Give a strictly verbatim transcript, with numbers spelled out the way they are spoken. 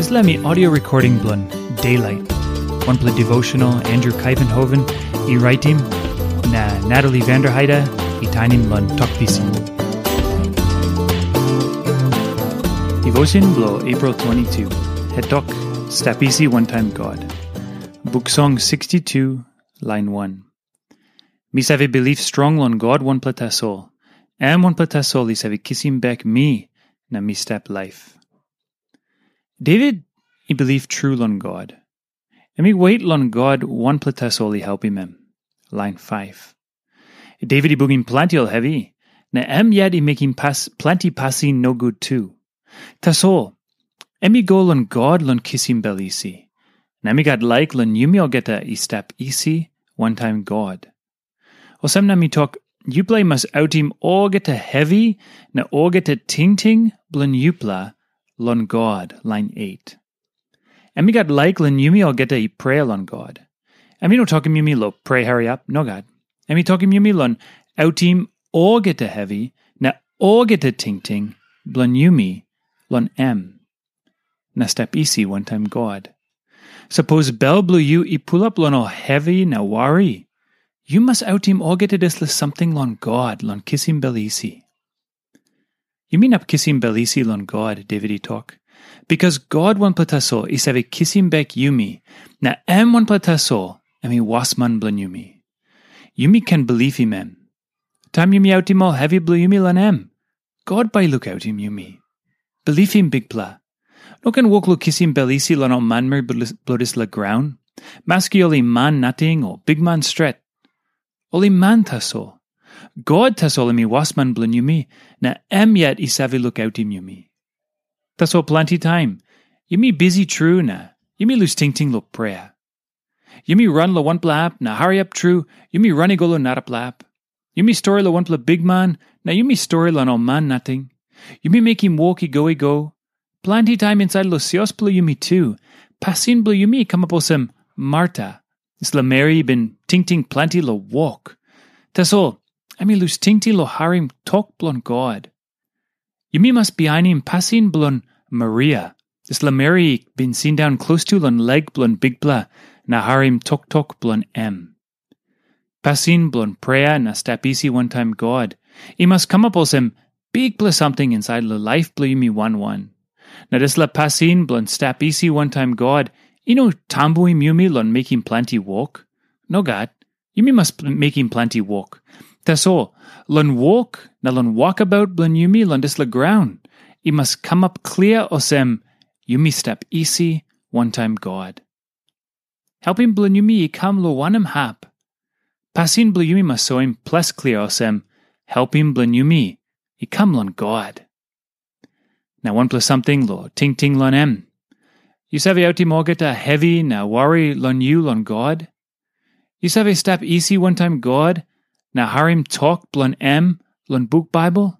Dispela mi audio recording bilong Daylight, wanpela devotional Andrew Kaivenhoven i raitim, na Natalie Vanderheide i tainim long Tok Pisin. Devotion bilong April twenty-two, het tok, Stap Isi Wantaim God. Buk Song sixty-two, lain one. Mi save bilip strong long God wanpela tasol. Em wanpela tasol i save kisim bek mi na mi stap laip. David i bilip tru long God. Em i wet long God wanpela tasol i helpim em. Lain five. David i bungim planti ol hevi, na em yet i mekim pas, planti pasin nogut tu. Tasol, em i go long God long kisim bel isi. Na mi gat laik long yumi olgeta i stap isi wantaim God. Olsem na mi tok, yupela i mas autim olgeta hevi na olgeta tingting bilong yupela long God, lain eight. Em i gat laik long yumi olgeta i prea long God. Em i no tokim yumi long prea hariap, nogat. Em i tokim yumi long autim olgeta hevi na olgeta tingting bilong yumi long em, na stap isi wantaim God. Sapos bel bilong yu i pulap long ol hevi na wari, yu mas autim olgeta dispela samting long God long kisim bel isi. Yumi inap kisim bel isi long God, David i tok, bikas God wanpela tasol i save kisim bek yumi, na em wanpela tasol em i wasman bilong yumi. Yumi ken bilipim em. Taim yumi autim ol hevi bilong yumi long em, God bai i lukautim yumi. Bilipim Bikpela. No ken wok long kisim bel isi long ol manmeri bilong dispela graun, maski ol i man nating o bikman stret. Ol i man tasol. God tasol em i wasman bilong yumi, na em yet i save lukautim yumi. Tasol planti taim, yumi bisi tru na yumi lus tingting long prea. Yumi ran long wanpela hap na hariap tru, yumi ran i go long narapela hap. Yumi stori long wanpela bikman, na yumi stori long ol man nating. Yumi mekim wok i go i go. Planti taim insait long sios bilong yumi tu, pasin bilong yumi i kamap olsem Marta, dispela meri i bin tingting planti long wok. Tasol, em i lus tingting long harim tok bilong God. Yumi mas bihainim pasin bilong Maria, dispela meri i bin sindaun klostu long lek bilong Bikpela na harim toktok bilong em. Pasin bilong prea na stap isi wantaim God i mas kamap olsem bikpela samting insait long laip bilong yumi wan wan. Na dispela pasin bilong stap isi wantaim God i no tambuim yumi long mekim planti wok. Nogat, yumi mas mekim planti wok. Tasol, long wok na long wokabaut bilong yumi long dispela graun, i mas kamap klia olsem yumi stap isi wantaim God. Helpim bilong yumi i kam long wanem hap? Pasin bilong yumi mas soim ples klia olsem, helpim bilong yumi i kam long God. Na wanpela samting long tingting long em. Yu save autim olgeta hevi na wari long yu long God? Yu save stap isi wantaim God na harim tok bilong em long buk Baibel?